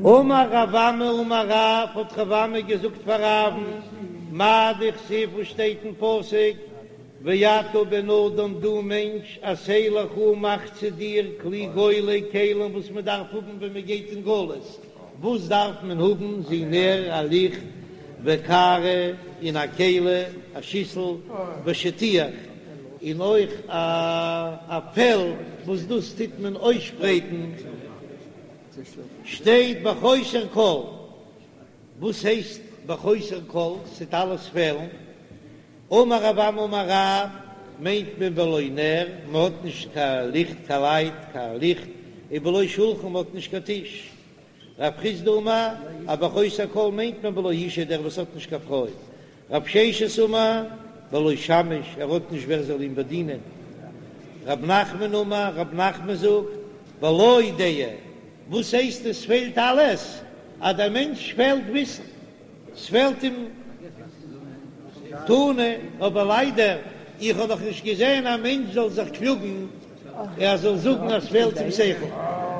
אמר רב אמי אמר רב, האט רב אמי געזאגט פאר רב'ן, מאי דכתיב וואס שטייט אין פסוק, ואתה בן אדם דו מענטש עשה לך מאך צו דיר כלי גולה כלים וואס מען דארף האבן ווען מען גייט אין גלות, וואס דארף מען האבן זו נר א ליכט וקערה און א כלי א שיסל ושטיח און אויך א פעל וואס דאס טוט מען אויסשפרייטן שטייט בחוסר כל, וואס הייסט בחוסר כל? ס'טוט אלעס פעלן. אמר רב אמי אמר רב, מיינט מען בלא נר, מ'האט נישט קיין ליכט קיין לייט קיין ליכט, ובלא שולחן מ'האט נישט קיין טיש. רב חסדא אמר, אז בחוסר כל מיינט מען בלא אישה דער וואס האט נישט קיין פרוי. רב ששת אמר, בלא שמש, ער האט נישט ווער זאל אים באדינען. רב נחמן אמר, רב נחמן זאגט, בלא דעה, וואס הייסט עס פעלט אלעס? אז דער מענטש פעלט וויסן. ס'פעלט אים תנא, אבער ליידער איך האב נאך נישט געזען א מענטש זאל זיך קלאגן ער זאל זאגן אז ס'פעלט אים שכל,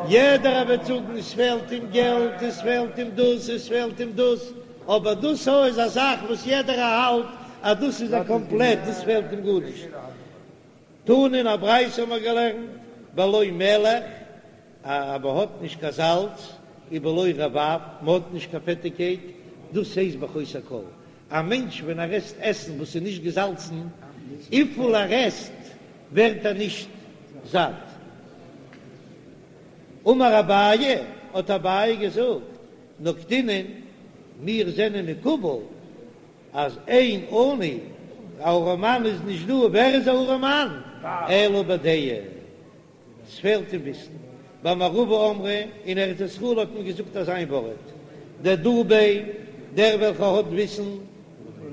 יעדער וועט זאגן עס פעלט אים געלט, עס פעלט אים דאס, עס פעלט אים דאס, אבער דאס הא איז א זאך וואס יעדער האלט אז דאס איז א קאמפלעט, דאס פעלט אים גארנישט. תנא אין א ברייתא האבן מיר געלערנט בלא מלח, אז מען האט נישט קיין זאלץ, ובלא רבב, מען האט נישט קיין פעטיגקייט, דאס הייסט בחוסר כל. א מענטש ווען ער עסט עסן וואס איז נישט געזאלצן, וויפיל ער עסט ווערט ער נישט זאט. אמר אביי, האט אביי געזאגט, נקטינן, מיר זענען מקובל אז אין עני, א ארעמאן איז נישט דא, ווער איז א ארעמאן? אלא בדעה. ס'פעלט אים וויסן. במערבא אמרי, אין ארץ ישראל האט מען געזאגט אזא איין ווארט, דדא ביה, דער וועלכער האט וויסן,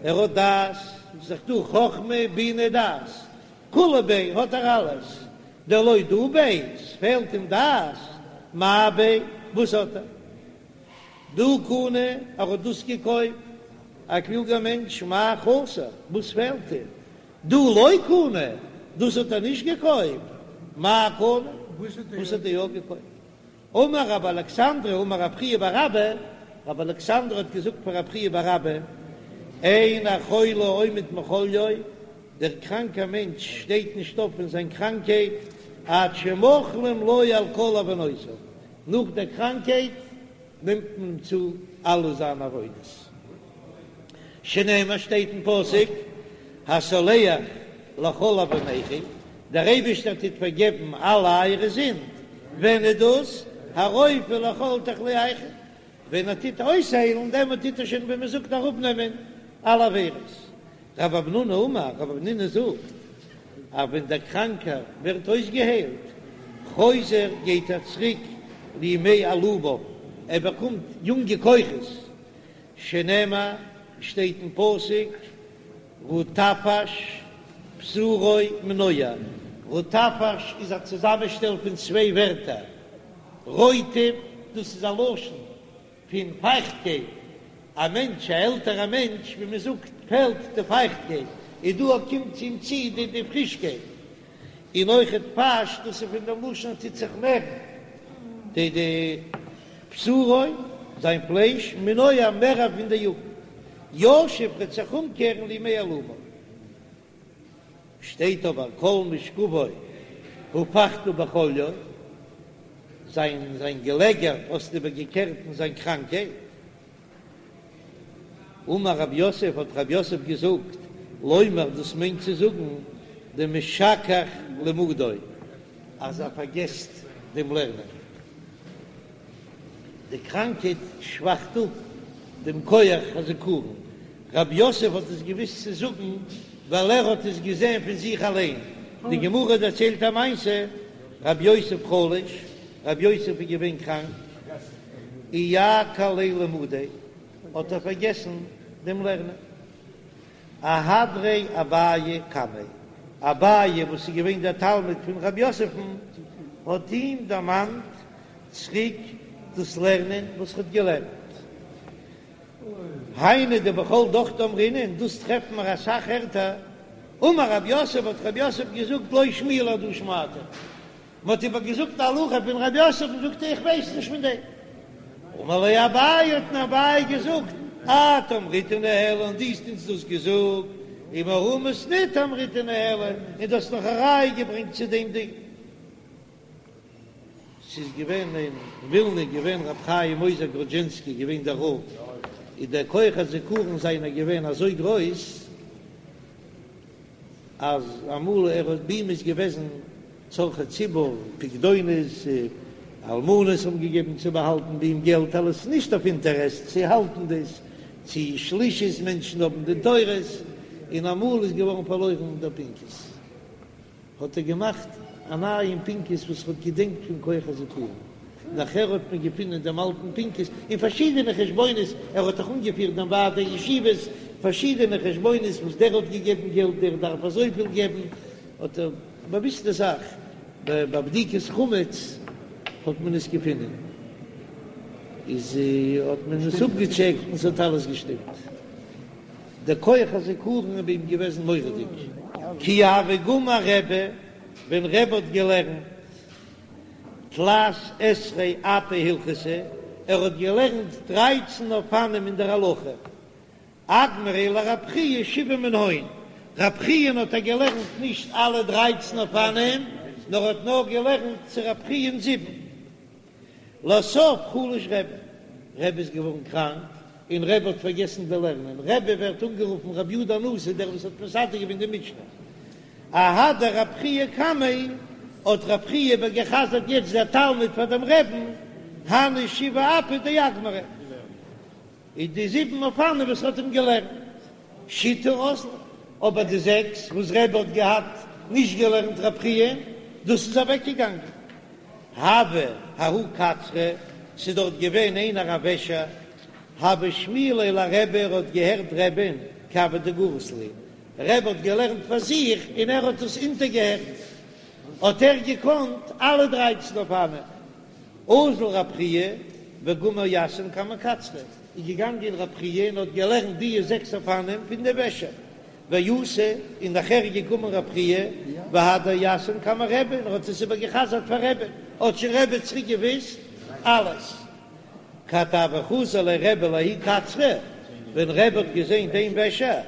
ער האט דעת, ס'איז דאך דא חכמה בינה דעת, כולא ביה האט ער אלעס, דלא דא ביה, ס'פעלט אים דעת, מאי ביה, וואס האט ער? דהא קני, ער האט דאס געקויפט, א קלוגער מענטש, מאי חסר, וואס פעלט אים? דהא לא קני, דאס האט ער נישט געקויפט, מאי קני, וואס האט ער יא געקויפט? אמר רבי אלכסנדרי אמר רב חייא בר אבא, רבי אלכסנדרי האט געזאגט פאר רב חייא בר אבא, אין החולה עומד מחליו, דער קראנקער מענטש שטייט נישט אויף פון זיין קראנקייט עד שמוחלים לו על כל עוונותיו, נאך דער קראנקייט נעמט מען אים צו אלע זיינע עוונות. שנאמר שטייט אין פסוק, הסולח לכל עוונכם, דער אייבערשטער טוט פארגעבן אלע אייערע זינד, ווען איז דאס? הרופא לכל תחלואיכם, ווען ער טוט אויסהיילן, דעמאלט טוט ער שוין ווי מען זאגט אראפנעמען אלע עבירות. רב המנונא אמר, רב המנונא זאגט, אז ווען דער קראנקער ווערט אויסגעהיילט, חוזר גייט ער צוריק לימי עלומיו, ער באקומט יונגע כוחות, שנאמר, שטייט אין פסוק, רטפש בשרו מנוער, רטפש איז א צוזאמענשטעל פון צוויי ווערטער, רוטב, דאס איז א לשון פון פייכטקייט, א מענטש, א עלטערע מענטש, ווי מען זאגט, פעלט די פייכטקייט, און דא קומט צו אים צו די די פרישקייט, און אויכעט פש, דאס איז פון דעם לשון טוט זיך מערן, די די בשרו, זיין פלייש, מנוער מער פון די יוגנט, ישוב וועט זיך אומקערן לימי עלומיו. שטייט אבער כל משכבו הפכת בחליו, זיין זיין געלעגער האסטו איבערגעקערט אין זיין קראנקייט. אמר רב יוסף, האט רב יוסף געזאגט, לומר דאס מיינט צו זאגן דמשכח למודו, אז ער פארגעסט דעם לערנען. די קראנקייט שוואכט אפ דעם כח הזכרון. רב יוסף האט עס געוואוסט צו זאגן ווייל ער האט עס געזען פון זיך אליין. די גמרא דערציילט א מעשה, רב יוסף חלש, רב יוסף איז געווען קראנק, איעקר ליה למודיה, האט ער פארגעסן דעם לערנען. אהדריה אביי קמיה, אביי וואס איז געווען דער תלמיד פון רב יוסף'ן, האט אים דערמאנט צוריק דאס לערנען וואס ער האט געלערנט. היינו דבכל דוכתא אמרינן, דאס טרעפן מיר אסאך ערטער. אמר רב יוסף, האט רב יוסף געזאגט, לא שמיע לי הדא שמעתא. מען האט איבער געזאגט א הלכה פון רב יוסף און זאגט ער איך ווייס נישט פון דעם. אמר ליה אביי האט אים אביי געזאגט, את אמריתה ניהלה דו האסט אונז דאס געזאגט, ומהא מתניתא אמריתה ניהלה, און דו האסט נאך א ראיה געברענגט צו דעם דין. ס'איז געווען אין ווילנע געווען ר' חיים עוזר גראדזשינסקי געווען דער רב, איז דער כח הזיכרון זיינער געווען אזוי גרויס, אז אמאל ער האט ביי אים איז געוועזן צרכי ציבור, פקדונות, אלמנות האבן געגעבן צו באהאלטן ביי אים געלט, אלעס נישט אויף אינטערעסט, צו האלטן דאס, צו שלישות מענטשן האבן דין תורות, און אמאל איז געווארן פארלוירן דער פנקס. האט ער געמאכט א נייעם פנקס וואס ער האט געדענקט פון כח הזיכרון, נאכער האט מען געפונען דעם אלטן פנקס און פארשידענע חשבונות, ער האט דאך אנגעפירט דעם ועד הישיבות, פארשידענע חשבונות וואס דער האט געגעבן געלט, דער דארף אזויפיל געבן, האט ער באוויסטע זאך, ביי בדיקת חמץ האט מען עס געפונען, איז האט מען עס אפגעטשעקט און ס'האט אלעס געשטימט. דער כח הזיכרון איז ביי אים געוועזן מורא'דיג. כי הוה גמר רבי, ווען רבי האט געלערנט תלת עשרה אפי הלכתא, ער האט געלערנט דרייצן אופנים אין דער הלכה, אגמריה לרב חייא שבעה מנהון, רב חיא'ן האט ער געלערנט נישט אלע דרייצן אופנים, נאר האט נאר געלערנט צו רב חיא'ן זיבן. לסוף חלש רבי, רבי איז געווארן קראנק און רבי האט פארגעסן די לערנען, רבי ווערט אנגערופן רבי יהודה הנשיא דער וואס האט מסדר געווען די משנה, אהדר רב חייא קמיה, האט רב חייא איבערגעחזרט יעצט דער תלמיד פאר דעם רעבן, הני שבעה אפי דאגמריה. איז די זיבן אופנים וואס האט אים געלערנט שיתא אזלו, אבער די זעקס וואס רבי האט געהאט נישט געלערנט רב חייא, דאס איז אוועק געגאנגען. הוה ההוא קצרא, ס'איז דארט געווען איינער א וועשער, הוה שמיע ליה לרבי, ער האט געהערט רבי'ן כי הוה דגריס להו, רבי האט געלערנט פאר זיך און ער האט עס אונטערגעהערט, האט ער געקאנט אלע דרייצן אופנים. אזל רב חייא וגמר יתהון קמי קצרא, איז געגאנגען רב חייא און האט געלערנט די זעקס אופנים פון די וועשער, ואתא, און נאכער איז געקומען רב חייא והדר יתהון קמי רבי און ער האט עס איבער געחזרט פאר רבי, האט שוין רבי צוריק געוויסט אלעס. כד הוה חזי ליה רבי לההוא קצרא, ווען רבי האט געזען דעם וועשער,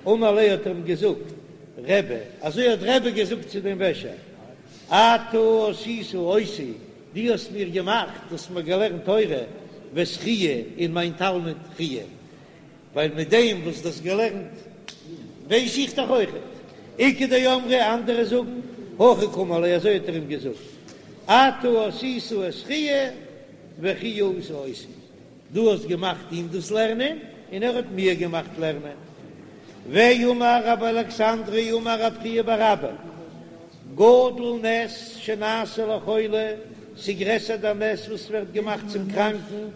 אמר ליה האט ער אים געזאגט, רבי, אזוי האט רבי געזאגט צו דעם וועשער, אתה עשית אותי, דו האסט מיר געמאכט, דו האסט מיר געלערנט תורה, ואת חייא און מיין תלמיד חייא, ווייל מיט דעם וואס דו האסט געלערנט ווייס איך דאך אויכעט. איכא דאמרי, אנדערע זאגן, הכי קאמר ליה, אזוי האט ער אים געזאגט, אתה עשית את חייא וחייא עשה אותי. דו האסט געמאכט אים דאס לערנען, און ער האט מיר געמאכט לערנען. ואמר רבי אלכסנדרי אמר רב חייא בר אבא, גדול נס שנעשה לחולה, ס'גרעסער דער נס וואס ווערט געמאכט צום קראנקן,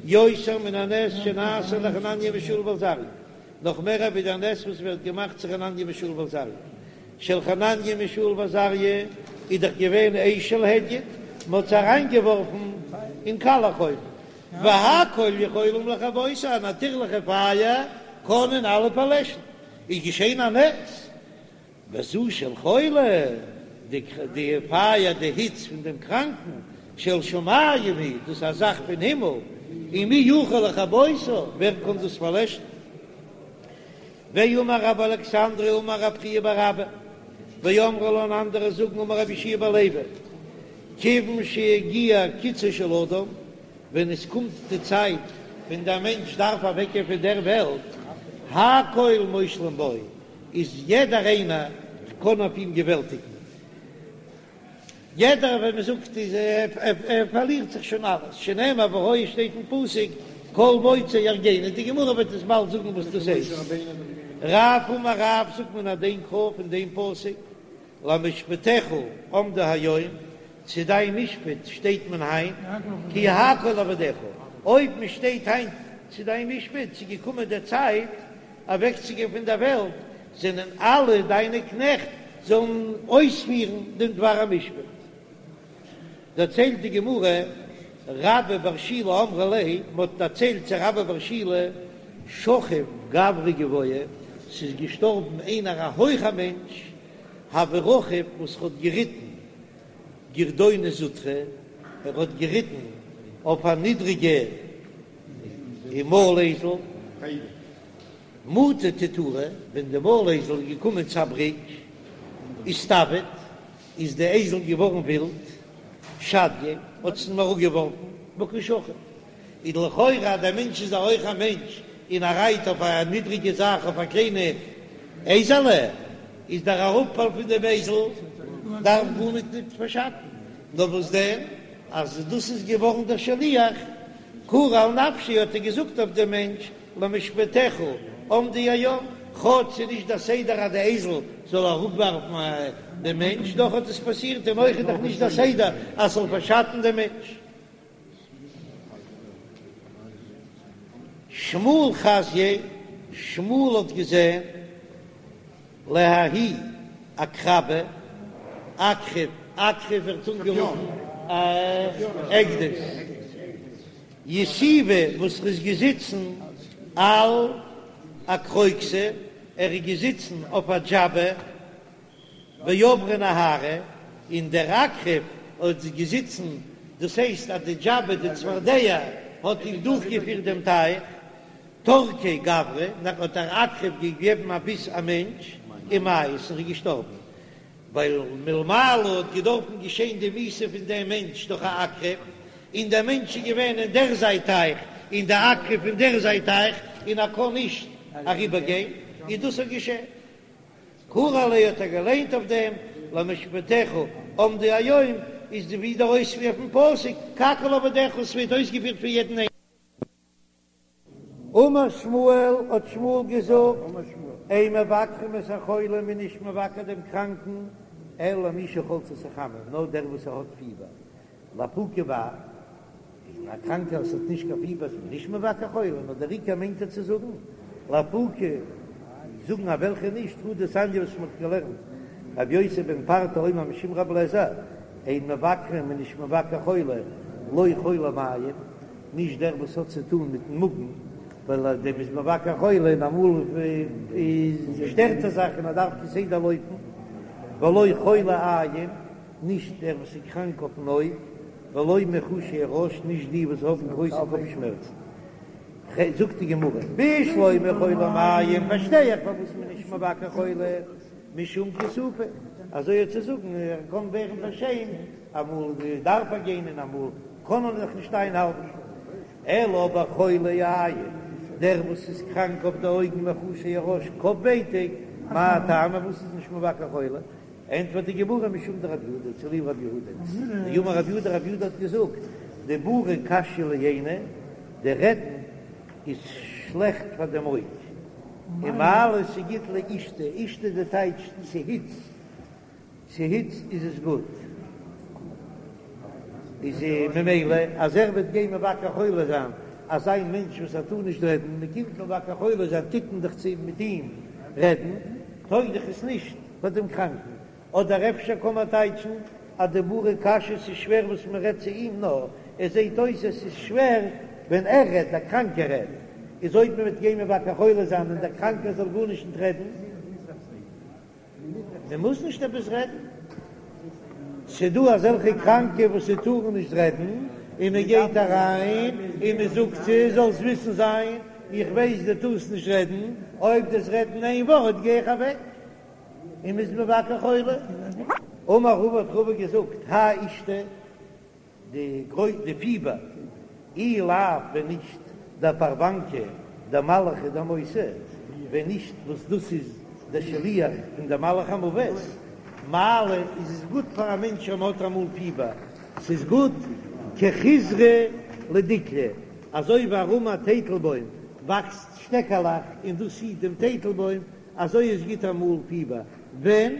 יותר מן הנס שנעשה לחנניה מישאל ועזריה, נאך מער ווי דער נס וואס ווערט געמאכט צו חנניה מישאל ועזריה. של חנניה מישאל ועזריה איז דאך געווען אש של הדיוט, מ'האט זיי אריינגעווארפן אין קאלעך אויוון, והכל יכולים לכבותו, א נאטירליכע פייער קענען אלע פארלעשן, איז געשען א נס, וזו של חולה, די פייער, די היץ פון דעם קראנקן, של שמים היא, דאס איז א זאך פון הימל, ומי יכול לכבותה, ווער קען דאס פארלעשן? ואמר רבי אלכסנדרי אמר רב חייא בר אבא, ואמרי לה און אנדערע זאגן אמר רבי יהושע בן לוי, כיוון שהגיע קיצו של אדם, ווען עס קומט די צייט ווען דער מענטש דארף אוועקגיין פון דער וועלט, הכל מושלים בו, איז יעדער איינער קען אויף אים געוועלטיגן, יעדער ווען מען זאגט איז ער פארלירט זיך שוין אלעס, שנאמר והיה שטייט אין פסוק כל מוצאי יהרגני, די גמרא וועט עס באלד זאגן וואס דאס הייסט. רב אמר רב זאגט מן הדין קרא פון דעם פסוק למשפטיך עמדו היום, צו דיין משפט שטייט מען היינט, כי הכל עבדיך, אויב מען שטייט היינט צו דיין משפט, ס'איז געקומען די צייט אוועקצוגיין פון דער וועלט, זענען אלע דיינע קנעכט זאלן אויספירן דעם דבר המשפט. דערציילט די גמרא, רבה בר שילא אמרו ליה, מען האט דערציילט צו רבה בר שילא, שכיב גברא גבוה, ס'איז געשטארבן איינער א הויכער מענטש, הוה רכיב וואס האט געריטן גרדונא זוטרא, ער האט געריטן אויף א נידריגע. און מויל אייזל, מטא תיתורא, ווען די מויל אייזל איז געקומען צו א בריק, איסתויט, איז די אייזל געווארן ווילד, שדייה, האט עס אים אראפגעווארפן, וקא שכיב. איז לכאורה אז דער מענטש איז א הויכער מענטש און ער רייט אויף א נידריגע זאך אויף א קליינע אייזעלע, איז דער אראפפאל פון דעם אייזל דארף גארניט ניט פארשאטן, נאר וואס דען אז דאס איז געווארן דער שליח, קרא על נפשיה האט ער געזאגט אויף דעם מענטש למשפטיך עמדו היום, כאטש ס'איז נישט דער סדר אז די אייזל זאל אראפווארפן דעם מענטש, דאך האט עס פאסירט און אויך איז דאך נישט דער סדר אז ס'זאל פארשאטן דעם מענטש. שמואל חזייה, שמואל האט געזען לההוא עקרבא, עקרב, עקרב ווערט אנגערופן א עקדיש, יתיבא וואס ער איז געזיצן על אקרוקסא, ער איז געזיצן אויף א דזשאבע, ועברה נהרא, און דער עקרב האט געזיצן, דאס הייסט אז די דזשאבע, די צפרדע, האט אים דורכגעפירט דעם טייך, טרקיה גברא, נאך האט דער עקרב געגעבן א ביס א מענטש, ומית, און ער איז געשטארבן, ווייל מלמעלה האט געדארפן געשען די מיתה פון דעם מענטש דורך א עקרב, און דער מענטש איז געווען אין דער זייט טייך, און דער עקרב אין דער זייט טייך, און ער קען נישט אריבערגיין, און דאס האט געשען. קרא עליה האט ער געליינט אויף דעם, למשפטיך עמדו היום, איז די ווי דער אויספיר פון פסוק, כי הכל עבדיך, ס'ווערט אויסגעפירט פון יעדן איינעם. אמר שמואל, האט שמואל געזאגט, אין מבקרים את החולה, מ'איז נישט מבקר דעם קראנקן, אלא מי שחלצתו חמה, נאר דער וואס ער האט פיבער, לאפוקי מאי, און א קראנקער וואס האט נישט קיין פיבער איז מען נישט מבקר חולה, נאר דער עיקר מיינט ער צו זאגן, לאפוקי, זאגן א וועלכע נישט, הא דתניא וואס מען האט געלערנט, רבי יוסי בן פרטא אומר משום רבי אליעזר, אין מבקרים מ'איז נישט מבקר חולה, לא חולי מעיים, נישט דער וואס האט צו טון מיטן מאגן, ווייל אז דעם איז מבקר חולה און אמאל איז שטערט ער זיך און ער דארף כסדר לויפן, ולא חולי עין. נישט דער וואס איז קראנק אויפן אויג, ולא מיחושי הראש, נישט די וואס האבן גרויסע קאפ שמערצן. זאגט די גמרא, בשלמא חולי מעיים, פארשטיי איך פארוואס מען איז נישט מבקר חולה, משום כיסופא, אזוי צו זאגן, ער קען ווערן פארשעמט, אמאל דארף ער גיין און אמאל קען ער זיך נישט איינהאלטן. אלא אבער חולי עין, דער וואס איז קראנק אויף די אויגן מיחושי הראש, קאפ ווייטאג, מאי טעמא, פארוואס איז נישט מבקר חולה? ענטפערט די גמרא משום דרב יהודה, צוליב רב יהודה, דאמר רב יהודה, רב יהודה האט געזאגט, דיבורא קשיא לעינא, די רעדן איז שלעכט פאר דעם אויג, ומעלי ס'גוט לאישתא, אישתא די טייטש צו היץ, צו היץ איז עס גוט, איז ממילא אז ער וועט גיין מבקר חולה זיין אזא מענטש וואס ער טאר נישט רעדן, מען קומט מבקר חולה זיין טוט מען דאך צו מיט אים רעדן, טויג דאך עס נישט. פאר דעם קראנקן, אדער אפשר קען מען טייטשן אז דיבורא קשיא ס'איז שווער וואס מען רעדט צו אים נאר עס זעט אויס עס איז שווער ווען ער רעדט דער קראנקער רעדט איז אויב מען וועט גיין מבקר חולה זיין און דער קראנקער זאל גארנישט נישט רעדן מען מוז נישט עפעס רעדן ס'דא אזעלכע קראנקע וואס זיי טארן נישט רעדן און מען גייט אריין און מען זאגט צו זאלסט וויסן זיין איך ווייס דו טארסט נישט רעדן אויב דו'סט רעדן איין ווארט גיי איך אוועק. און מ'איז מבקר חולה. אמר רבא האט רבא געזאגט, האי אישתא, די גרוי די פיבער, אי לאו ווען נישט דפרוונקא דמלאכא דמותא, ווען נישט וואס דאס איז דער שליח פון דער מלאך המוות, מעלי איז עס גוט פאר א מענטש אויב מ'האט אמאל פיבער, ס'איז גוט כחיזרא לדיקלא, אזוי ווי ארום א טייטלבוים וואקסט שטעקעלעך און דאס היט דעם טייטלבוים, אזוי איז גוט אמאל פיבער ווען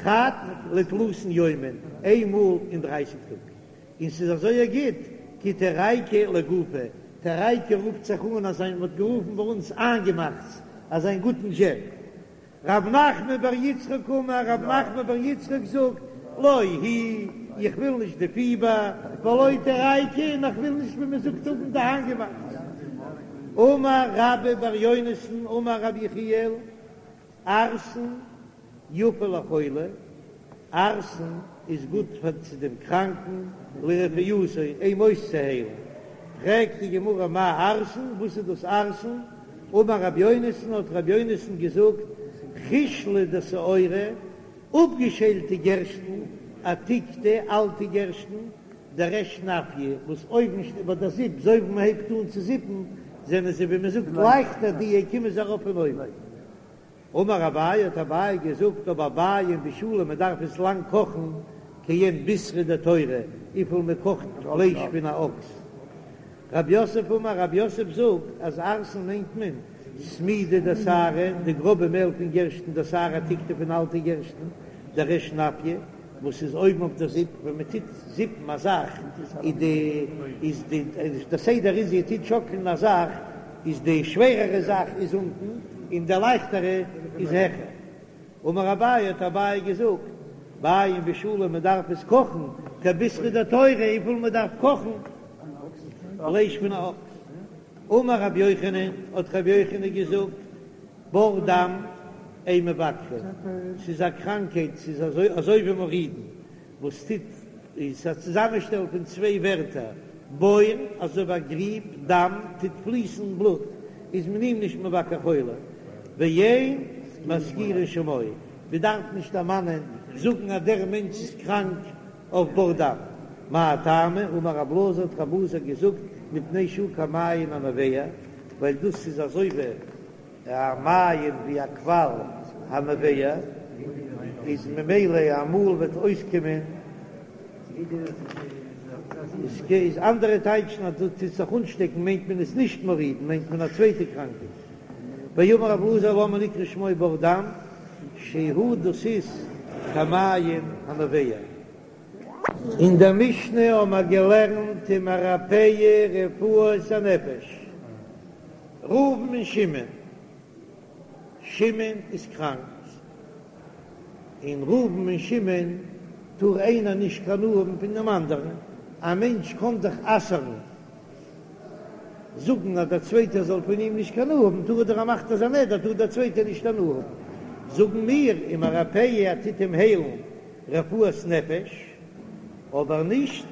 חד לתלתין יומין, איין מאל אין דרייסיג טאג, און ס'איז אזוי גוט כי תרייקא לגופא, תרייקא רופט זיך אן אזא מ'האט גערופן ביי אונז איינגעמאכטס, אזא גוטן דזשעם. רב נחמן בר יצחק אמר, רב נחמן בר יצחק זאגט, לא היא, איך וויל נישט די פיבער, ולא תרייקא, און איך וויל נישט ווי מ'זאגט האבן די איינגעמאכטס. אמר רבה בר יונתן אמר רבי יחיאל, ערסן יפה לחולה, ערסן איז גוט פאר צו דעם קראנקן, לרפואתו, אים אויסצוהיילן. פרעגט די גמרא מאי ערסן, וואס איז דאס ערסן? אמר רבי יונתן, האט רבי יונתן געזאגט, חישלא דשעורא, אפגעשיילטע גערשטן, עתיקתא, אלטע גערשטן, דריש נפיא, וואס אויבן ביי די זיפ, אזוי ווי מען הייבט אן צו זיפן, זענען זיי ווי מען זאגט לייכטער, די קומען זיי ארויף פון אויבן. אמר אביי, האט אביי געזאגט, אבער בעיין בישולא, מען דארף עס לאנג קאכן, כעין בישרא דתורא, וויפיל מען קאכט פלייש פון א אקס. רב יוסף אמר, רב יוסף זאגט אז ערסן מיינט מען סמידא דשערי, די גראבע מעל פון גערשטן, דשערי עתיקתא פון אלטע גערשטן, דריש נפיא, וואס איז אויבן אויף די זיפ, ווען מען טוט זיפן א זאך איז די איז די די סדר איז איר טוט שאקלן א זאך איז די שווערערע זאך איז אונטן און די לייכטערע איז העכער. אמר אביי האט אביי געזאגט, בעיין בישולא מען דארף עס קאכן כבישרא דתורא וויפיל מען דארף קאכן פלייש פון א אקס. אמר רבי יוחנן האט רבי יוחנן געזאגט, בור דם אין מבקרין, ס'איז א קראנקהייט, ס'איז אזוי אזוי ווי מורידין, וואס טוט איז א צוזאמענשטעל פון צוויי ווערטער, בור, אזוי ווי א גריב, דם, טוט פליסן בלוט, איז מען אים נישט מבקר חולה, ואין מזכירין שמו, מען דארף נישט דערמאנען, זאגן אז דער מענטש איז קראנק אויף בור דם. מאי טעמא, אמר רב אלעזר האט רב אלעזר געזאגט, מפני שהוא כמעיין הנובע, ווייל דאס איז אזוי ווי א מעיין ווי א קוואל הנובע איז ממילא אמאל וועט אויסקומען איז אנדערע טייטשן אז דאס טוט זיך אנשטעקן מיינט מען עס נישט מורידין מיינט מען א צווייטע קראנקייט ואמר רב אלעזר למה נקרא שמו בור דם שהוא דאס איז כמעיין הנובע. אין דער משנה האבן מיר געלערנט ומרפאהו רפואת הנפש. ראובן און שמעון, שמעון איז קראנק, און ראובן און שמעון טאר איינער נישט קיין הנאה האבן פון דעם אנדערן, א מענטש קען דאך אסר'ן, זאגן אז דער צווייטער זאל פון אים נישט קיין הנאה האבן, טאר ער דאך ער מאכט אזא נדר טאר דער צווייטער נישט הנאה האבן, זאגן מיר ומרפאהו ער טוט אים היילן רפואת נפש, אבער נישט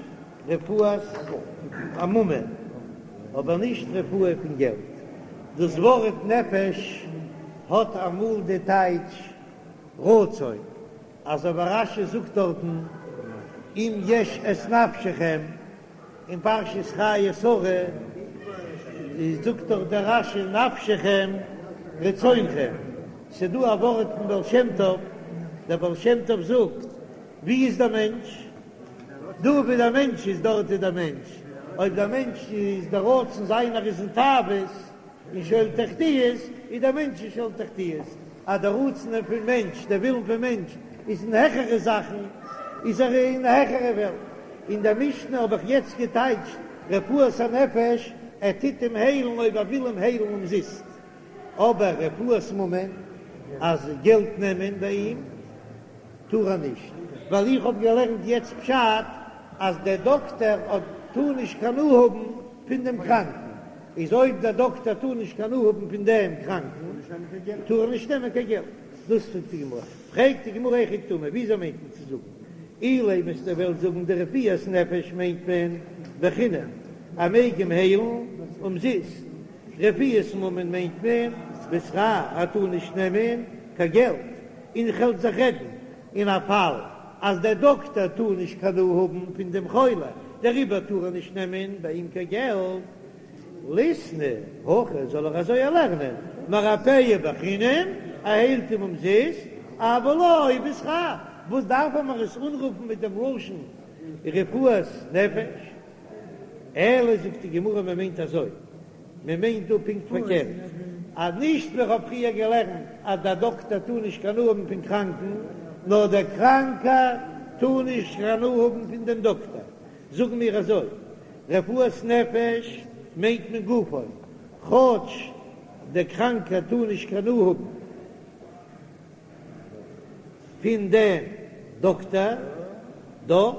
רפואת ממון, אבער נישט רפואה פון געלט. דאס ווארט נפש האט אמאל די טייטש רצון, אזוי ווי רש"י זאגט דארטן אם יש את נפשכם אין פרשת חיי שרה, זאגט דאך דער רש"י נפשכם רצונכם. ס'דא א ווארט פון בעל שם טוב, דער בעל שם טוב זאגט, ווי איז דער מענטש? דא ווי דער מענטש איז דארט איז דער מענטש, אויב דער מענטש איז דער רצון זיינער איז אין תאוות אין שאול תחתיות, איז דער מענטש אין שאול תחתיות, אז דער רצון פון מענטש, דער ווילן פון מענטש איז אין העכערע זאכן, איז ער אין העכערע וועלט. אין דער משנה האב איך יעצט געטייטשט רפואת הנפש, ער טוט אים היילן אויב ער וויל אים היילן אומזיסט. אבער רפואת ממון, אז געלט נעמען ביי אים טאר ער נישט, ווייל איך האב געלערנט יעצט פשט אז דער דאקטער האט טאר נישט קיין הנאה האבן פון דעם קראנקן, איז אויב דער דאקטער טאר נישט קיין הנאה האבן פון דעם קראנקן טאר ער נישט נעמען קיין געלט, דאס זאגט די גמרא, פרעגט די גמרא היכי קתני, וויאזוי מיינט מען צו זאגן אילימא וועסטו וועלן זאגן דרפואת נפש מיינט מען בחינם, ער מעג אים היילן אומזיסט, רפואת ממון מיינט מען בשכר, ער טאר נישט נעמען קיין געלט, און איך וועל זיך רעדן אין א פאל אז דער דאקטער טאר נישט קיין הנאה האבן פון דעם חולה, דעריבער טאר ער נישט נעמען ביי אים קיין געלט. ליתני הכי זאל ער אזוי לערנען, מרפאהו בחינם, ער היילט אים אומזיסט, אבל לא בשכר, וואס דארף ער מיר עס אנרופן מיט דעם לשון רפואת נפש? אלא זאגט די גמרא מען מיינט אזוי, מען מיינט דא פונקט פארקערט, אז נישט ווי איך האב פריער געלערנט אז דער דאקטער טאר נישט קיין הנאה האבן פון קראנקן, נאר דער קראנקער טאר נישט קיין הנאה האבן פון דעם דאקטער, זאגן מיר אזוי, רפואת נפש מיינט מען גופו, כאטש דער קראנקער טאר נישט קיין הנאה האבן פון דעם דאקטער, דאך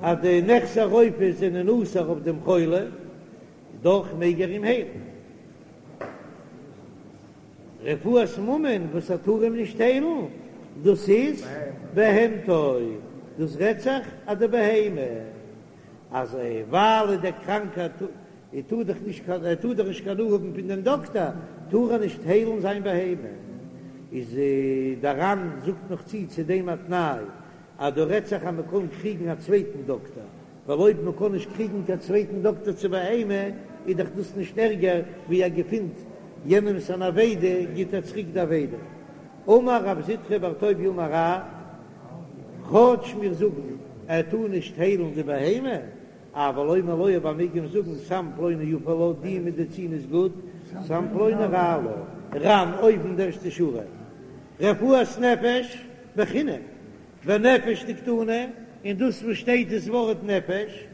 אז די נכסי רופא זענען אסור אויף דעם חולה, דאך מעג ער אים היילן. רפואת ממון וואס ער טאר אים נישט היילן, דאס איז בהמתו, דאס רעדט זיך אז די בהמה. אז ווייל דער קראנקער טאר דאך נישט קיין ער טאר דאך נישט קיין הנאה האבן פון דעם דאקטער, טאר ער נישט היילן זיין בהמה. איז דער ר"ן זאגט נאך צו צו דעם א תנאי אז דא רעדט זיך אז מען קען קריגן א צווייטן דאקטער, ווייל אויב מען קען נישט קריגן קיין צווייטן דאקטער צו בהמה איז דאך דאס נישט ערגער ווי ער געפינט יענעמס אן אבידה גיט ער צוריק די אבידה. אמר רב זוטרא בר טוביה אמר רב, כאטש מיר זאגן ער טאר נישט היילן די בהמה, אבל אומר לו אבער מעג אים זאגן סם פלוני יפה לה, די מעדיצין איז גוט, סם פלוני רע לה. ר"ן אויבן די ערשטע שורה, רפואת נפש בחינם, ונפש דקתני, און דאס וואס שטייט דאס ווארט נפש,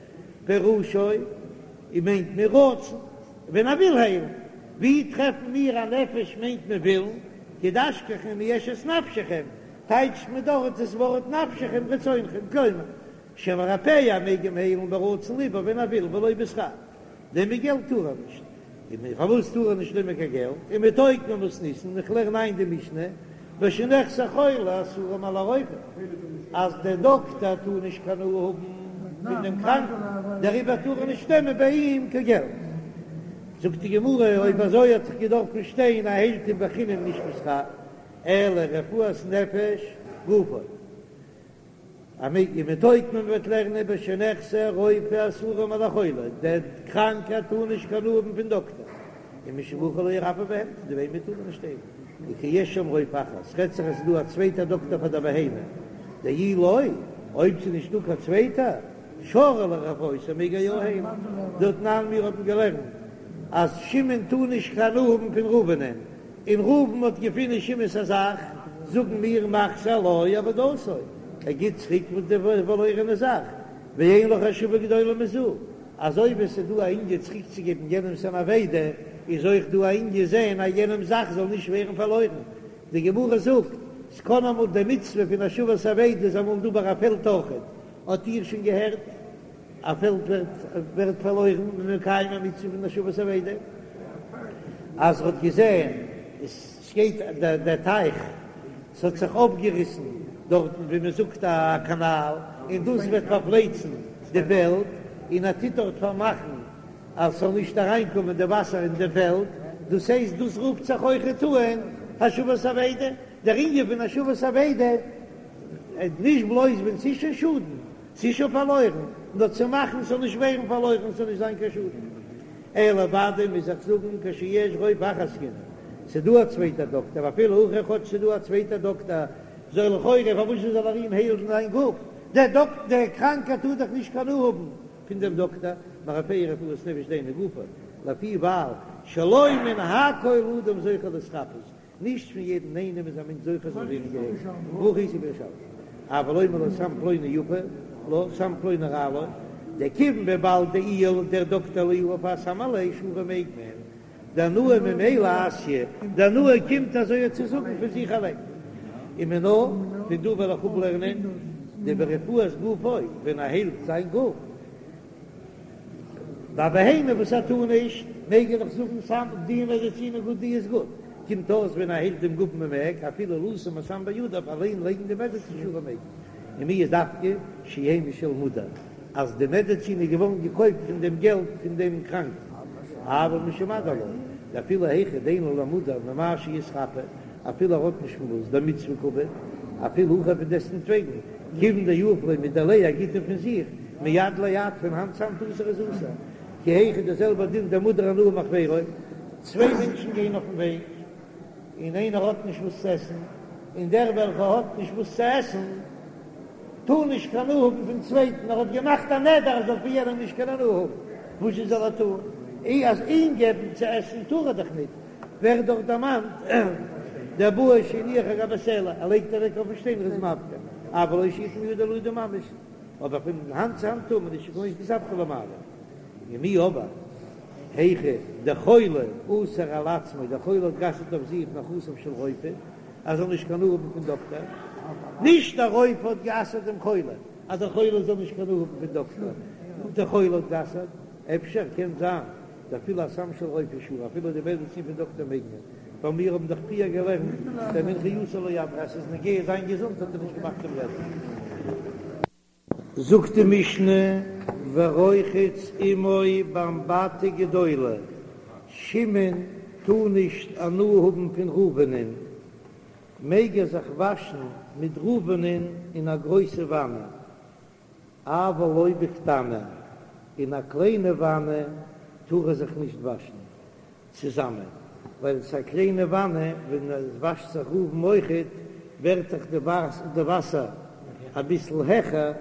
פירושו, און מיינט מען רצון, ווען ער וויל היילן. ווי טרעפן מיר א נפש מיינט מען ווילן, כדאשכחן אם יש את נפשכם, טייטשט מען דארט דאס ווארט נפשכם רצונכם, כלומר, שמרפאהו ער מעג אים היילן ברצון לבו ווען ער וויל ולא בשכר. נעמען געלט טאר ער נישט. און פארוואס טאר ער נישט נעמען קיין געלט? ומתוקמא מתניתין, איך לערן איין די משנה, בשנכסי חולה אסורים על הרופא, אז דער דאקטער טאר נישט קיין הנאה האבן פון דעם קראנקן, דעריבער טאר ער נישט נעמען ביי אים קיין געלט. זאגט די גמרא, אויב אזוי האט זיך געדארפט שטיין ער היילט אים בחינם נישט בשכר, אלא רפואת נפש גופו. ומתוקמא מ'וועט לערנען בשנכסי רופא אסורים על החולה, דער קראנקער טאר נישט קיין הנאה האבן פון דאקטער, ומשום הכי לא ירפא בהמתו, די בהמה טאר מען נישט היילן, וכשיש שם רופא אחר, ס'רעדט זיך אז ס'איז דא א צווייטער דאקטער פאר דער בהמה, דאי לא, אויב ס'איז נישט דא קיין צווייטער, שרי לרפאותו מעג ער יא היילן, דתנן מיר האבן געלערנט אז שמעון טאר נישט קיין הנאה האבן פון ראובנ'ען, און ראובן האט געפונען שמעון'ס א זאך, זאגן מיר מחזיר לו אבדתו, ער גיט צוריק וואס די פארלוירענע זאך, ואין לך השבה גדולה מזו, אזוי ווי עס איז דא א ענין צוריקצוגעבן יענעמ'ס אן אבידה, איז אויך דא א ענין זען אז יענעמ'ס זאך זאל נישט ווערן פארלוירן. די גמרא זאגט, ס'קען אמאל די מצוה פון השבת אבידה איז אמאל דא ביי א פעלד אויכעט, האט איר שוין געהערט? א פעלד ווערט ווערט פארלוירן און מקיים א מצוה פון השבת אבידה, אז ער האט געזען עס גייט דער טייך, ס'האט זיך אויפגעריסן דארטן ווי מען זאגט א קאנאל, און דאס וועט פארפלייצן די פעלד, און ער טוט דארט פארמאכן אז ס'זאל נישט אריינקומען די וואסער אין די פעלד, דאס הייסט דאס רופט זיך אויכעט אן השבת אבידה, דער ענין פון השבת אבידה איז נישט בלויז ווען ס'איז שוין שאדן, ס'איז שוין פארלוירן, נאר צו מאכן ס'זאל נישט ווערן פארלוירן, ס'זאל נישט זיין קיין שאדן. אלא ודאי מוז איך זאגן כשיש רופא אחר עסקינן, ס'איז דא א צווייטער דאקטער, ואפילו הכי כאטש ס'איז דא א צווייטער דאקטער, זאל לכאורה פארוואס זאל ער אים היילן זיין גוף, דער דאקטער, דער קראנקער טאר דאך נישט קיין הנאה האבן פון דעם דאקטער, מרפאהו רפואת נפש דהיינו גופו, לפי ווייל שלא מן הכל אדם זוכה להתרפאות, נישט פון יעדן איינעם איז א מענטש זוכה זאל ווערן געהיילט, והכי איתא בירושלמי, אבל אומר לו סם פלוני יפה לו סם פלוני רע לו, דכיון וויבאלד דאיהו דער דאקטער לא יהיב הסם עליה שרי מעג מען, דהנאה ממילא אתיא, די הנאה קומט אזוי צו זאגן פון זיך אליין. ומינה, פון דא וועל איך אפלערנען דברפואת גופו, ווען ער היילט זיין גוף, ביי בהמה וואס ער טאר נישט, מעג ער דאך זאגן סם, די מעדעצין איז גוט די איז גוט, קומט אויס ווען ער היילט דעם גוף מען מעג אפילו לשום הסם בידיו אליין לייגן די מעדעצין שרי מעג מען, ומיהו דווקא שיהא משל מודר אז די מעדעצין איז געווארן געקויפט פון דעם געלט פון דעם קראנקן, אבל משמדיר לא, דאפילו היכא דאין לו למודר ממה שיתרפא, אפילו ער האט נישט פון וואס, דמצוה קעביד, אפילו הכי פון דעסטנטוועגן, כיוון דיהיב ליה מדיליה ער גיט אים פון זיך, מיד ליד פון האנט צו האנט אסור איז אסור, כי היכי די זעלבע דין דמודר הנאה מחבירו, צוויי מענטשן גייען אויפן וועג און איינער האט נישט וואס צו עסן, און דער וועלכער האט נישט וואס צו עסן טאר נישט קיין הנאה האבן פון צווייטן, ער האט געמאכט א נדר ער זאל פון יענעם נישט קיין הנאה האבן, וואס זשע זאל ער טון? אי אז אים געבן צו עסן טאר ער דאך ניט, ווערט דאך דערמאנט דבעי שיניח על גבי סלע, ער לייגט אוועק אויפן שטיין ער איז מפקיר, אבל לא שיתן מידו לידו ממש, אבער פון האנט צו האנט טאר מען נישט כגון שתספקא למעלה. ומיהו אבער היכא דחולה אסר על עצמו, דער חולה האט גע'אסר'ט אויף זיך נכסיו של רופא, ער זאל נישט קיין הנאה האבן פון דאקטער, נישט דער רופא האט גע'אסר'ט דעם חולה אז דער חולה זאל נישט קיין הנאה האבן פון דאקטער, נאר דער חולה האט גע'אסר'ט, אפשר קען זיין דאפילו הסם של רופא שרי, אפילו די מעדעצין פון דאקטער מעג מען, ווייל מיר האבן דאך פריער געלערנט דמנחייתו לא אדריה אז ס'איז נוגע זיין געזונט האט ער נישט געמאכט דעם נדר. זאגט די משנה. ורוחץ עמו באמבטי גדולה, שמעון טאר נישט הנאה האבן פון ראובנ'ען, מעג ער זיך וואשן מיט ראובנ'ען אין א גרויסע וואנע, אבל לא בקטנה, אין א קליינע וואנע טאר ער זיך נישט וואשן צוזאמען, ווייל עס איז א קליינע וואנע, ווען עס וואשט זיך ראובן אויכעט, ווערט דאך די וואסער אביסל העכער,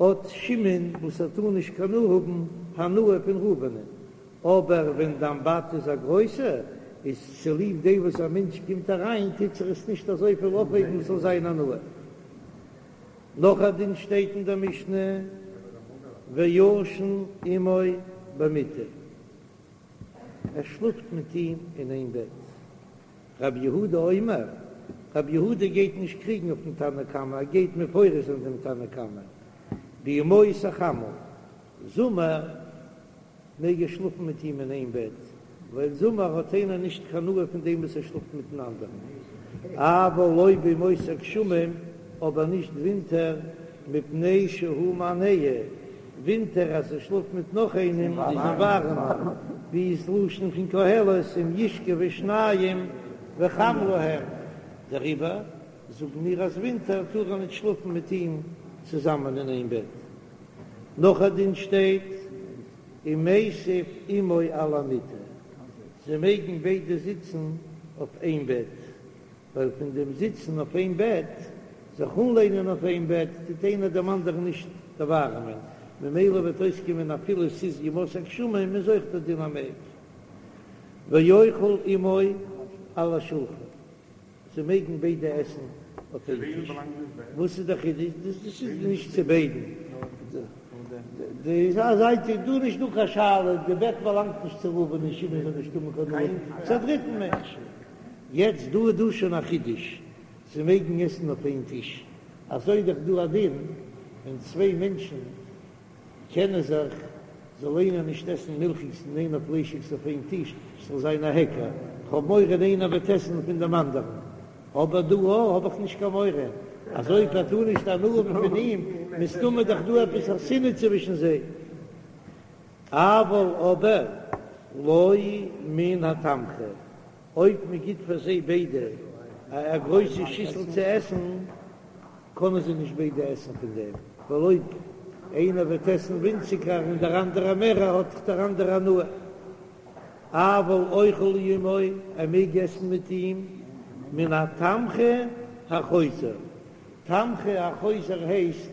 האט שמעון וואס ער טאר נישט קיין הנאה האבן הנאה פון ראובנ'ען, אבער ווען די אמבטי איז א גרויסע, איז צוליב דעם וואס א מענטש קומט אריין טוט זיך עס נישט אזויפיל אויפהייבן עס זאל זיין הנאה. נאך א דין שטייט אין דער משנה, וישן עמו במיטה, ער שלאפט מיט אים אין איין בעט. רבי יהודה אומר, רבי יהודה גייט נישט קריגן אויפן תנא קמא, ער גייט מפרש זיין דעם תנא קמא, בימות החמה, זומער, מעג ער שלאפן מיט אים אין איין בעט, ווייל זומער האט איינער נישט קיין הנאה פון דעם וואס ער שלאפט מיטן אנדערן, אבל לא בימות הגשמים, אבער נישט ווינטער, מפני שהוא מהנהו, ווינטער אז ער שלאפט מיט נאך איינעם איז אים ווארעמער, ווי איז לשון פון קהלת אם ישכבו שניים וחם להם, דעריבער זאגן מיר אז ווינטער טאר ער נישט שלאפן מיט אים צוזאמען אין איין בעט. נאך א דין שטייט ומיסב עמו על המיטה, זיי מעגן ביידע זיצן אויף איין בעט, ווייל פון דעם זיצן אויף איין בעט, זיך אנלענען אויף איין בעט, טוט איינער דעם אנדערן נישט דערווארעמען, ממילא וועט אויסקומען אפילו ס'איז ימות הגשמים איז אויך דער דין אז מ'מעג. ואוכל עמו על השולחן. זיי מעגן ביידע עסן אויף איין טיש. וואס איז דער חידוש? דאס איז נישט צו ביידן. די זייט איז דא נישט דא קיין שאלה, די בעט באלאנגט נישט צו ראובן און שמעון זאל נישט האבן קיין הנאה, צו א דריטן מענטש. יעצט דא איז דא שוין א חידוש, זיי מעגן עסן אויף איין טיש. אזוי איז דאך דא א דין ווען צוויי מענטשן קענען זיך, זאל איינער נישט עסן מילכיגס און איינער פליישיגס אויף איין טיש, ס'זאל זיין א היכר, כ'האב מורא איינער וועט עסן פון דעם אנדערן, אבער דא האב איך נישט קיין מורא, אז אויב ער טאר נישט הנאה האבן פון אים, מסתמא דאך דא עפעס א שנאה צווישן זיי. אבל אבער לא מן התמחוי, אויב מען גיט פאר זיי ביידע א גרויסע שיסל צו עסן, קענען זיי נישט ביידע עסן פון דעם, ווייל אויב איינער וועט עסן ווינציגער און דער אנדערער מערער האט דאך דער אנדערער הנאה. אבל אוכל עמו, ער מעג עסן מיט אים מן התמחוי החוזר. תמחוי החוזר הייסט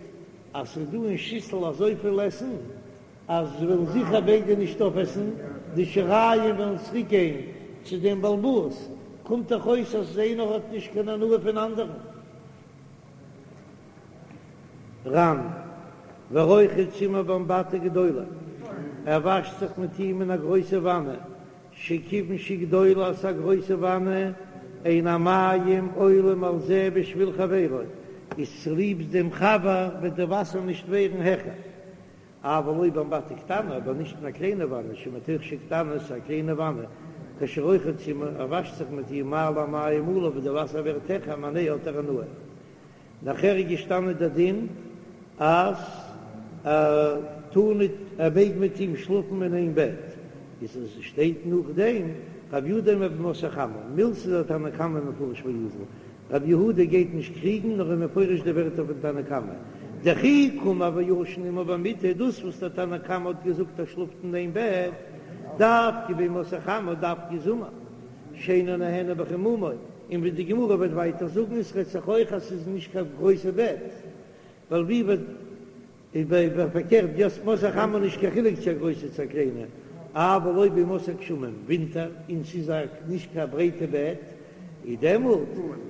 אז ס'איז דא אין שיסל אזויפיל עסן אז זיי וועלן זיכער ביידע נישט אויפעסן, די שיריים וועלן צוריק גיין צו דעם בעל הבית, קומט דאך אויס אז איינער האט נישט קיין הנאה פון אנדערן. ר"ן, ורוחץ עמו באמבטי גדולה, ער וואשט זיך מיט אים אין א גרויסע וואנע, שכיוון שגדולה אז ס'איז א גרויסע וואנע, אין המים עולים על זה בשביל חברו, איז צוליב דעם חבר וועט די וואסער נישט ווערן העכער. אבל לא באמבטי קטנה, אבער נישט אין א קליינע וואנע, שמתוך שקטנה, ס'איז א קליינע וואנע, כשרוחץ עמה, ער וואשט זיך מיט איר מעלה המים עליו ווען די וואסער ווערט העכער ומהנהו האט ער הנאה. נאכער איז געשטאנען דער דין אז ער טאר ניט, ער מעג מיט אים שלאפן אין איין בעט, איז עס שטייט נאכדעם רב יהודה אומר בימות החמה, מילתא דתנא קמא מפרש ואזיל, רבי יהודה גייט נישט קריגן נאר איז מפרש די ווערטער פון תנא קמא, דכי קאמר וישן עמו במיטה, דאס וואס דער תנא קמא האט געזאגט ער שלאפט אין איין בעט, דווקא בימות החמה דווקא זומער, שאינו נהנה בחימומו, און ווי די גמרא וועט ווייטער זאגן עס רעדט זיך אויך אז ס'איז נישט קיין גרויסע בעט, ווייל ווי וועט איז ביי פארקערט בימות החמה נישט קיין חילוק צו א גרויסע צו א קליינע, אבל לא בימות הגשמים ווינטער און ס'איז א נישט קיין ברייטע בעט איז דעמאלט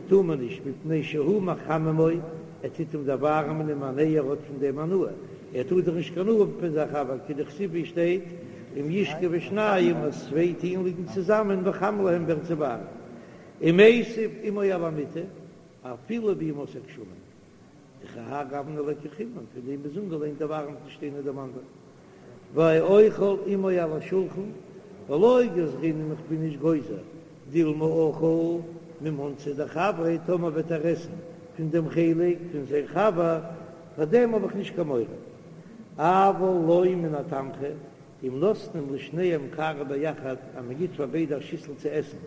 טאר מען נישט מפני שהוא מחממו ער טוט אים דערווארעמען ומהנהו ער האט פון דעם הנאה ער טאר דאך נישט קיין הנאה האבן פון זיין חבר כדכתיב ווי שטייט אם ישכבו שניים אז צוויי טוען ליגן צוזאמען וחם להם ווערט זיי ווארעם ומיסב עמו על המיטה אפילו בימות הגשמים. דכהאי גוונא ליכא חימום, פון דעם איז אנגעלענט דערווארעמט נישט איינער דעם אנדערן. ואוכל עמו על השולחן, ולא גזרינן איך בין נישט גוזר, דילמא אכל ממנתא דחבריה, טאמער וועט ער עסן פון דעם חלק פון זיין חבר, פאר דעם האב איך נישט קיין מורא. אבל לא מן התמחוי, אם נותנים לשניהם קערה ביחד, אז מען גיט פאר ביידע א שיסל צו עסן,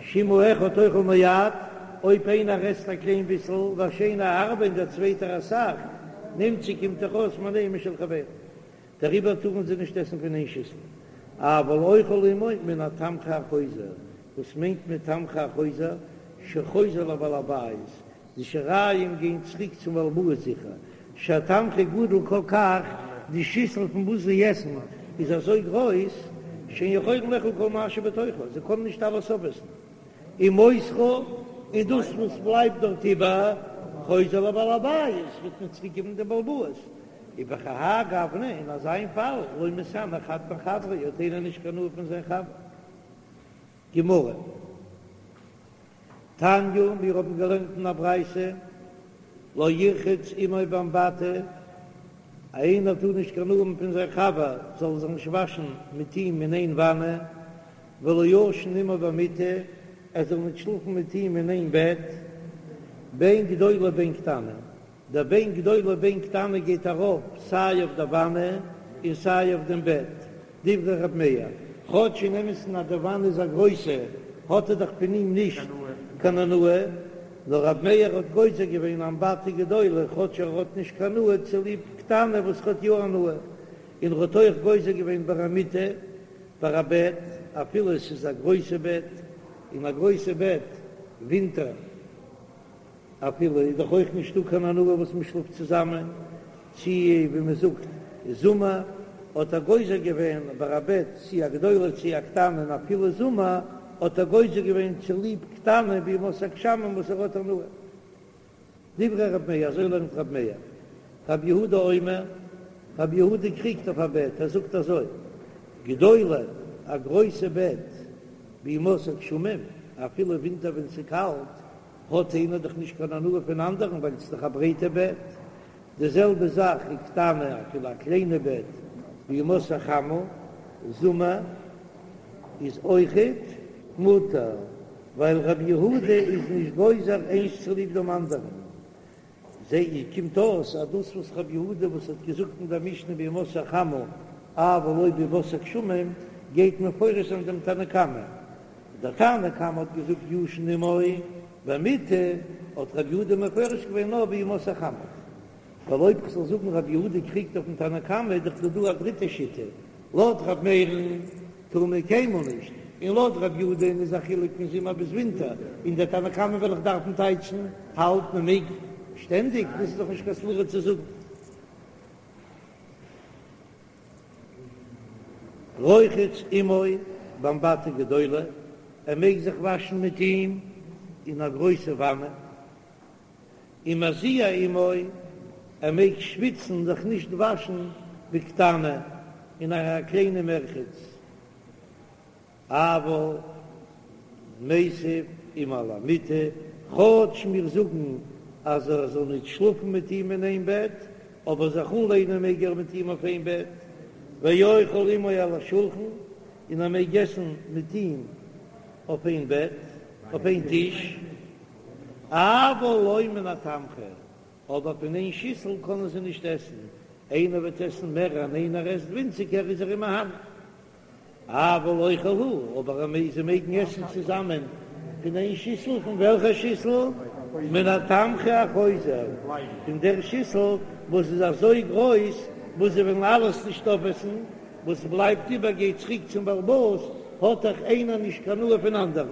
שאם האחד אוכל מעט, אויב איינער עסט א קליין ביסל, והשני הרבה און דער צווייטער אסאך, נמצא קומט דאך אויס מונע משל חברו. דעריבער טארן זיי נישט עסן פון איין שיסל. אבל אוכל עמו מן התמחוי החוזר, וואס מיינט מען תמחוי החוזר? שחוזר לבעל הבית, די שיריים גייען צוריק צום בעל הבית זיכער, שהתמחוי גדול כל כך, די שיסל פון וואס זיי עסן איז אזוי גרויס, שאין יכולין לאכול כל מה שבתוכה, זיי קענען נישט אלעס אויפעסן, ומותרה, און דאס וואס בלייבט דארט איבער, חוזר לבעל הבית, וועט מען צוריק געבן דעם בעל הבית, ובכהאי גוונא, אין אזא פאל, לא מתהני חד מחבריה, האט איינער נישט קיין הנאה פון זיין חבר. גמרא. תניא, מיר האבן געלערנט אין א ברייתא, לא ירחץ עמו באמבטי, איינער טאר נישט קיין הנאה האבן פון זיין חבר, זאל זיך נישט וואשן מיט אים אין איין וואנע, ולא ישן עמו במיטה, ער זאל נישט שלאפן מיט אים אין איין בעט, בין גדולה בין קטנה. דער בין גדולה בין קטנה גייט ארויף סיי אויף דער וואנע און סיי אויף דעם בעט, דברי ר' מאיר, כאטש אין אמת'ן אז די וואנע איז א גרויסע האט ער דאך פון אים נישט קיין הנאה, נאר ר' מאיר האט גוזר געווען אמבטי גדולה כאטש ער האט נישט קיין הנאה צוליב קטנה וואס האט יא הנאה, און ער האט אויך גוזר געווען ביי א מיטה ביי א בעט אפילו עס איז א גרויסע בעט, און א גרויסע בעט ווינטער. אפילו איז דאך אויך נישטא קיין הנאה וואס מען שלאפט צוזאמען, צי ווי מען זאגט זומער, האט ער גוזר געווען ביי א בעט צי א גדולה צי א קטנה און אפילו זומער האט ער גוזר געווען צוליב קטנה בימות הגשמים וואס ער האט הנאה. דברי רב מאיר, אזוי לערנט רב מאיר. רב יהודה אומר, רב יהודה קריגט אויף א בעט, ער זאגט אזוי, גדולה, א גרויסע בעט בימות הגשמים, אפילו ווינטער ווען ס'קאלט, האט איינער דאך נישט קיין הנאה פון אנדערן ווייל ס'איז דאך א ברייטע בעט. די זעלבע זאך איז קטנה, אפילו א קליינע בעט בימות החמה, זומער, איז אויכעט מותר, ווייל רבי יהודה איז נישט גוזר איינס צוליב דעם אנדערן. זע איך קומט אויס אז דאס וואס רבי יהודה וואס האט געזאגט אין דער משנה בימות החמה אבל לא בימות הגשמים גייט מפרש זיין דעם תנא קמא, דער תנא קמא האט געזאגט ישן עמו במיטה, האט רבי יהודה מפרש געווען נאר בימות החמה. ווייל אויב כ'זאל זאגן רבי יהודה קריגט אויפן תנא קמא איז דאך דא דא א דריטע שיטה, לויט רבי מאיר'ן טאר מען קיינמאל נישט, און לויט רבי יהודה'ן איז א חילוק פון זומער ביז ווינטער, און דער תנא קמא וועל איך דארפן טייטשן האלט מען מעג שטענדיג, דאס איז דאך נישט קיין סברא צו זאגן. רוחץ עמו באמבטי גדולה, ער מעג זיך וואשן מיט אים אין א גרויסע וואנע. ומזיע עמו, ער מעג שוויצן זיך נישט וואשן בקטנה אין א קליינע מרחץ, אבל מיסב עמו על המיטה, כאטש מיר זאגן אז ער זאל נישט שלאפן מיט אים אין איין בעט, אבער זיך אנלענען מעג ער מיט אים אויף איין בעט, ואוכל עמו על השולחן, און ער מעג עסן מיט אים אויף איין בעט, אויף איין טיש. אבל לא מן התמחוי, אבער פון איין שיסל קענען זיי נישט עסן, איינער וועט עסן מער און איינער עסט ווינציגער איז ער אים מהנה. אבל אוכל הוא, אבער זיי מעגן עסן צוזאמען פון איין שיסל, פון וועלכע שיסל? מן התמחוי החוזר, פון דער שיסל וואס איז אזוי גרויס וואס זיי וועלן אלעס נישט אויפעסן, וואס בלייבט איבער גייט צוריק צום בעל הבית, האט דאך איינער נישט קיין הנאה פון אנדערן.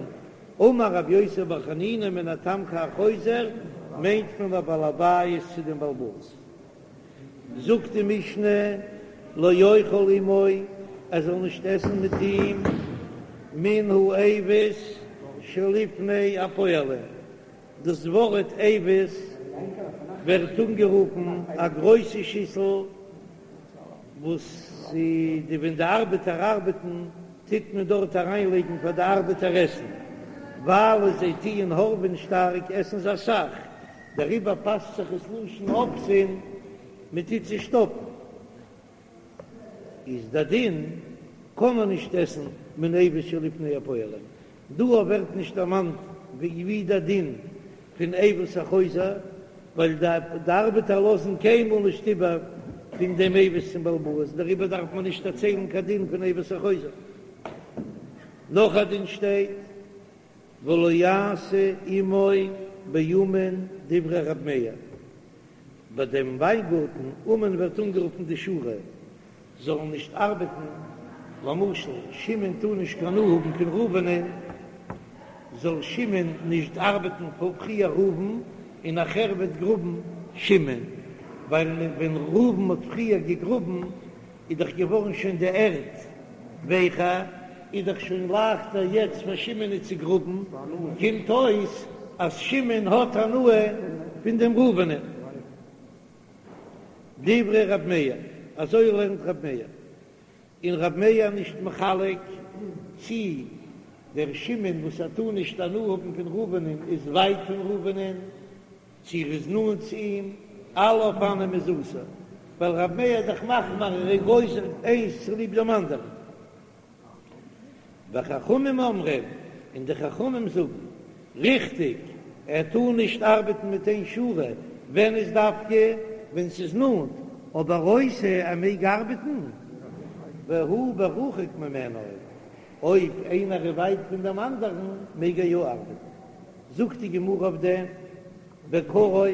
אמר רבי יוסי בר חנינא מן התמחוי החוזר מיינט מען לבעל הבית צו דעם בעל הבית. זאגט די משנה לא יאכל עמו ער זאל נישט עסן מיט אים מן האבוס שלפני הפועלים, דאס ווארט אבוס ווערט אנגערופן א גרויסע שיסל וואס די ווען די ארבעטער ארבעטן טוט מען דארט אריין לייגן פאר די ארבעטער עסן, ווייל זיי טוען הארעווען שטארק עסן זיי אסאך, דעריבער פאסט זיך עס לשון אובסין, מען טוט זיי שטאפן, איז די דין קען מען נישט עסן מן האבוס שלפני הפועלים, דא ווערט נישט דערמאנט ווי די דין פון אבוס החוזר, ווייל די ארבעטער לאזן קיינמאל נישט איבער. פון דעם אבוס צום בעל הבית, דעריבער דארף מען נישט דערציילן קיין דין פון אבוס החוזר. נאך א דין שטייט ולא יעשה עמו באומן דברי ר' מאיר, ביי דעם וויינגארטן, אומן ווערט אנגערופן די שורה, זאלן נישט ארבעטן, למשל שמעון טאר נישט קיין הנאה האבן פון ראובנ'ען, זאל שמעון נישט ארבעטן פאר פריער ראובן און נאכער וועט גראבן שמעון, ווייל ווען ראובן האט פריער געגראבן איז דאך געווארן שוין די ערד ווייכער, איז דאך שוין לייכטער יעצט פאר שמעונ'ען צו גראבן, קומט אויס אז שמעון האט הנאה פון דעם ראובנ'ען. דברי ר' מאיר, אזוי לערנט ר' מאיר, און ר' מאיר נישט מחלק צי דער שמעון וואס ער טאר נישט הנאה האבן פון ראובנ'ען איז ווייט פון ראובנ'ען, צי ער איז נאנט צו אים, אלע אופנים איז אסור, ווייל ר' מאיר איז דאך מחמיר ער איז גוזר איינס צוליב דעם אנדערן. וחכמים אומרים, און די חכמים זאגן, ריכטיג, ער טאר נישט ארבעטן מיט איין שורה, ווען איז דווקא ווען ס'איז נאנט, אבער עושה, ער מעג ארבעטן, והוא ברחוק ממנו, אויב איינער איז ווייט פון דעם אנדערן מעג ער יא ארבעטן. זאגט די גמרא אויף דעם, בקרוב,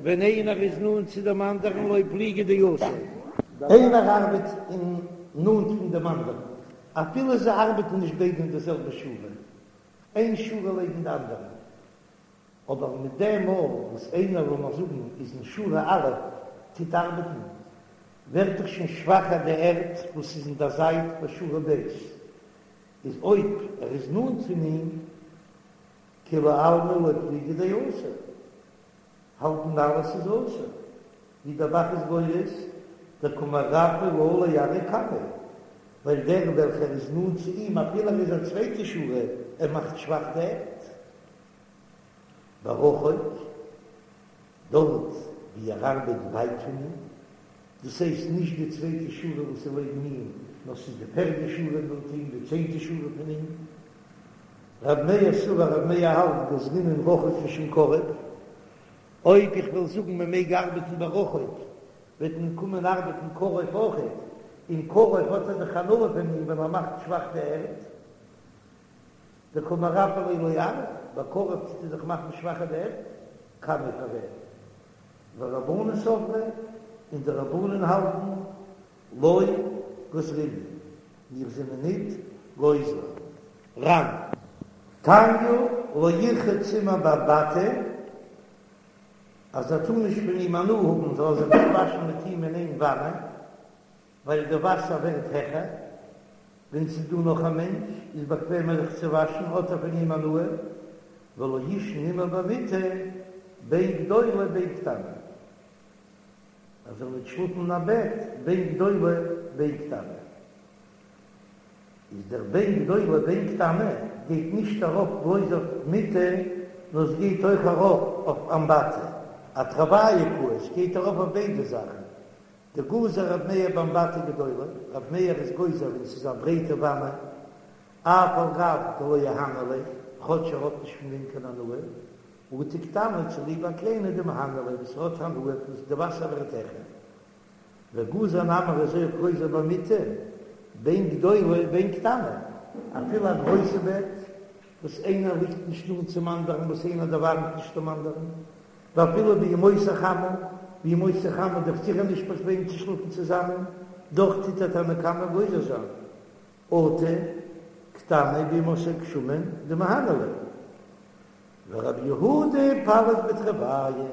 ווען איינער איז נאנט צו דעם אנדערן לא פליגי דאסור. איינער ארבעט אין נאנט פון דעם אנדערן, אפילו זיי ארבעטן נישט ביידע אין די זעלבע שורה, איין שורה לעבן די אנדערע, אבער מיט דעם מאל וואס איינער לאמיר זאגן איז אין שורה א' טוט ארבעטן, ווערט דאך שוין שוואכער די ערד וואס איז אין דער זייט ביי שורה ב', איז אויב ער איז נאנט פון אים, כולי עלמא לא פליגי דאסור, האלטן אלע ס'איז אסור, ווי דער ב"ח איז גורס, דקא מרפי לה לארעא קמיה, ווייל דער וועלכער איז נאנט צו אים אפילו ער איז א צווייטע שורה, ער מאכט שוואך די ערד. ברחוק, דארט ווי ער ארבעט ווייט פון אים, דאס הייסט נישט די צווייטע שורה וואס איז לעבן אים, נאר ס'איז די פערדע שורה נאנט אים, די צענטע שורה פון אים. רב מאיר סבר רב מאיר האלט גזרינן רחוק משום קרוב, אויב איך וועל זאגן מען מעג ארבעטן ברחוק וועט מען קומען ארבעטן קרוב אויכעט, און קרוב האט ער דאך הנאה פון אים ווען ער מאכט שוואך די ערד, דקא מרפי ליה לארעא, ביי קרוב טוט ער דאך מאכן שוואכער די ערד, קמיה פאר וועם? ורבנן סברי, און די רבנן האלטן לא גזרינן, מיר זענען ניט גוזר. ר"ן. תניא לא ירחץ עמו באמבטי, אז ער טאר נישט פון אים הנאה האבן זאל ער זיך נישט וואשן מיט אים אין איין וואנע, ווייל די וואסער ווערט העכער, ווען ס'איז דא נאך א מענטש איז באקוועמער זיך צו וואשן האט ער פון אים הנאה, ולא יישן עמו במיטה בין גדולה בין קטנה. ער זאל ניט שלאפן אין א בעט בין גדולה בין קטנה. איז דער בין גדולה בין קטנה גייט נישט ארויף בלויז אויף מיטה, נאר עס גייט אויך ארויף אויף אמבטי, אתרוייהו קאי, עס גייט ארויף אויף ביידע זאכן. דגזר רב מאיר באמבטי גדולה, רב מאיר איז גוזר ווען ס'איז א ברייטע וואנע, אף על גב דלא מהני ליה, כאטש ער האט נישט פון דעם קיין הנאה, אטו קטנה צוליב א קליינע דמהניא ליה וואס האט הנאה פון די וואסער ווערט העכער. וגזר נמי איז אויך גוזר במיטה בין גדולה בין קטנה, אפילו א גרויסע בעט וואס איינער ליגט נישט נאנט צום אנדערן וואס איינער דערווארעמט נישט דעם אנדערן, ואפילו בימות החמה, בימות החמה איז דאך זיכער נישט באקוועם צו שלאפן צוזאמען, דאך טוט דער תנא קמא גוזר זיין. אטו קטנה בימות הגשמים דמהניא ליה. ורבי יהודה פליג בתרוייהו,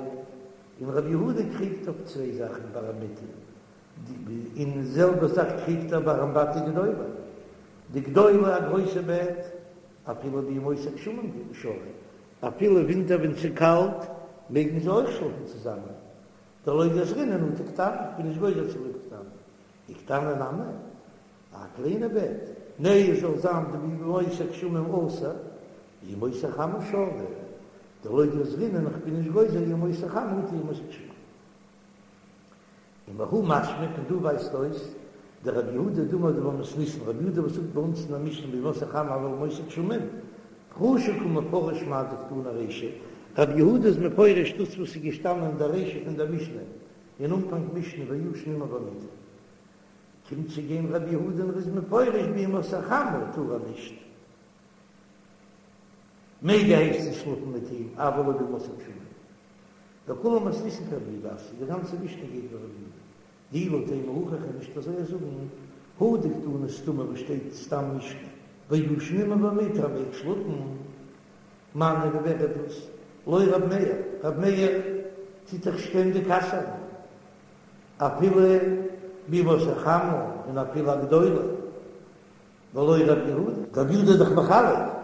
און רבי יהודה קריגט אויף צוויי זאכן ביי דער מיטה, און די זעלבע זאך קריגט ער ביי אמבטי גדולה, דגדולה א גרויסע בעט, אפילו בימות הגשמים שרי, אפילו ווינטער ווען ס'איז קאלט מעגן זיי אויך שלאפן צוזאמען, דלא גזרינן אטו קטנה, כ'בין נישט גוזר צוליב קטנה, וקטנה נמי, א קליינע בעט, נע עס זאל זיין דבימות הגשמים אסור, בימות החמה שרי, דלא גזרינן איך בין נישט גוזר ימות החמה אטו ימות הגשמים. ומהא משמע פון דא ווייזט אויס דרבי יהודה דאמר דבמתניתין רבי יהודה וואס זאגט ביי אונז אין א משנה בימות החמה אבל בימות הגשמים פרושי קא מפרש מאי דקתני רישא רבי יהודה איז מפרש דאס וואס איז געשטאנען אין דער רישא פון דער משנה. אין אנפאנג משנה וישן עמה במיטה. קומט צו גיין רבי יהודה און ער איז מפרש בימות החמה טאר ער נישט. מעג ער הייסט עס שלאפן מיט אים אבל לא בימות הגשמים. וכולה מתניתין כרבי יהודה אתיא, די גאנצע משנה גייט ווי רבי יהודה. דאי לא תימא הכי כ'קען נישט אזוי זאגן, הא דקתני סתמא וואס שטייט סתם משנה, וישן עמה במיטה ער מעג שלאפן, מני ווי ווער איז דאס? לא רב מאיר, רב מאיר טוט דאך שטענדיג אסר'ן אפילו בימות החמה און אפילו א גדולה, ולא רב יהודה, רב יהודה איז דאך מחלק.